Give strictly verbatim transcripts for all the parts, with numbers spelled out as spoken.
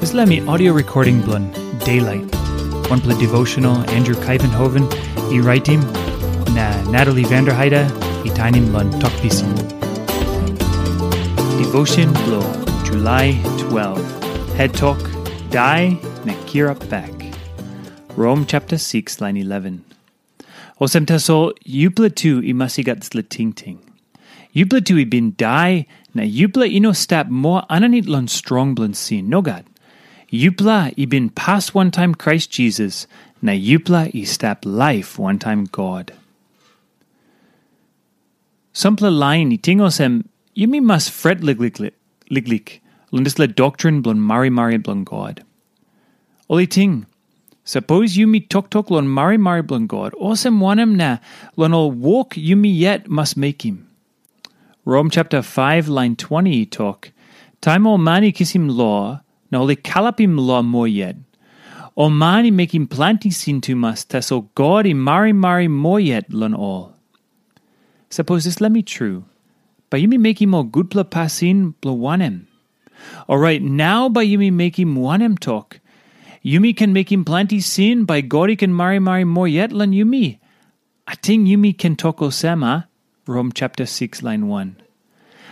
Dispela mi audio recording bilong Daylight, wanpela devotional Andrew Kaivenhoven i raitim, na Natalie Vanderheide i tainim long Tok Pisin. Devotion bilong July twelve. Head Tok, Dai na Kirap Bek. Rom chapter six, line eleven. Olsem tasol, yupela tu i mas i gat dispela tingting. Yupela tu i bin dai, na yupela i no stap moa aninit long strong bilong sin. Nogat. Yupela i bin pas wantaim Krais Jisas, na yupela i stap laip wantaim God. Sampela lain i ting olsem, yumi mas fret liklik, liklik long dispela doktrin bilong marimari bilong God. Ol i ting, sapos yumi toktok long marimari bilong God, olsem wanem na long ol wok yumi yet mas mekim? Rom chapter five, line twenty i tok, taim ol man i kisim lo, na ol i kalapim lo moa yet, ol man i mekim planti sin tumas, tasol God i marimari moa yet long ol. Sapos dispela mi tru, bai yumi mekim ol gutpela pasin bilong wanem? Orait nau bai yumi mekim wanem tok? Yumi ken mekim planti sin, bai God i ken marimari moa yet long yumi? Ating yumi ken tok olsem, a? Rom chapter six, line one.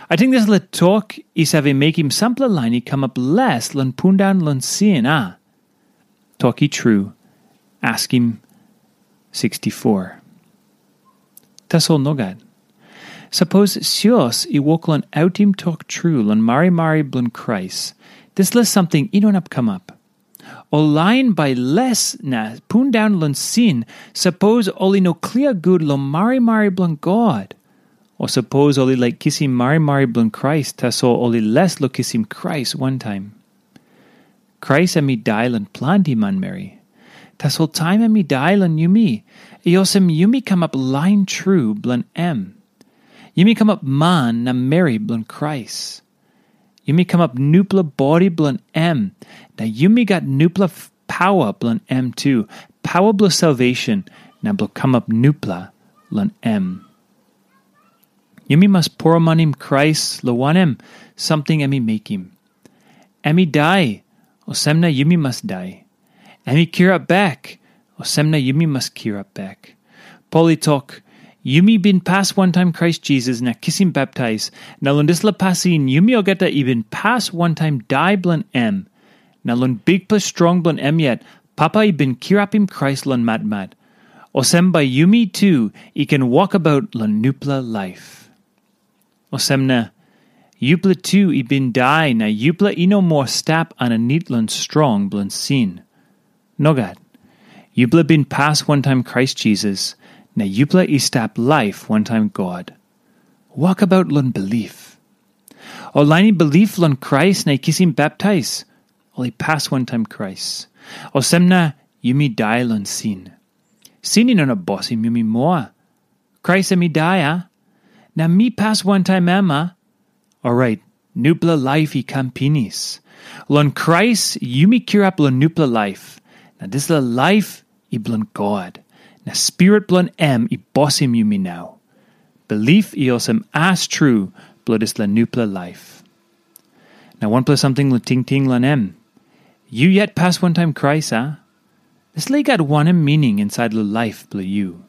Ating dispela tok i save mekim sampela lain i kamap les long pundaun long sin, a? Tok i tru, askim sixty-four. Tasol nogat. Sapos sios i wok long autim tok tru long marimari bilong Krais, dispela samting i no inap kamap. Ol lain bai les na pundaun long sin, sapos ol i no klia gut long marimari bilong God, o sapos ol i laik kisim marimari bilong Krais, tasol ol i les long kisim Krais wantaim. Krais em i dai long planti manmeri. Tasol taim em i dai long yumi, i olsem yumi kamap lain tru bilong em. Yumi kamap man na meri bilong Krais. Yumi kamap nupela bodi bilong em, na yumi gat nupela paua bilong em tu, paua bilong salvation, na bilong kamap nupela long em. Yumi mas poromanim Krais long wanem samting em i mekim. Em i dai, olsem na yumi mas dai. Em i kirap bek, olsem na yumi mas kirap bek. Pol i tok, yumi bin pas wantaim Krais Jisas na kisim baptais, na long dispela pasin yumi olgeta i bin pas wantaim dai bilong em. Na long bikpela strong bilong em yet, Papa i bin kirapim Krais long matmat. Olsem bai yumi tu i ken wokabaut long nupela laip. Olsem na, yupela tu i bin dai na yupela i no moa stap aninit long strong bilong sin. Nogat. Yupela bin pas wantaim Krais Jisas, na yupela i stap laip wantaim God. Wokabaut long bilip. Ol lain i bilip long Krais na i kisim baptais, ol i pas wantaim Krais. Olsem na yumi dai long sin. Sin i no inap bosim yumi moa. Krais em i dai, a? Na mi pas wantaim em, a? Orait, nupela laip i kam pinis. Long Krais yumi kirap long nupela laip, na dispela laip i bilong God, na Spirit bilong em i bosim yumi nau. Bilip i olsem as tru bilong dispela nupela laip. Na wanpela samting long tingting long em. Yu yet pas wantaim Krais, a? Dispela i gat wanem mining insait long laip bilong yu?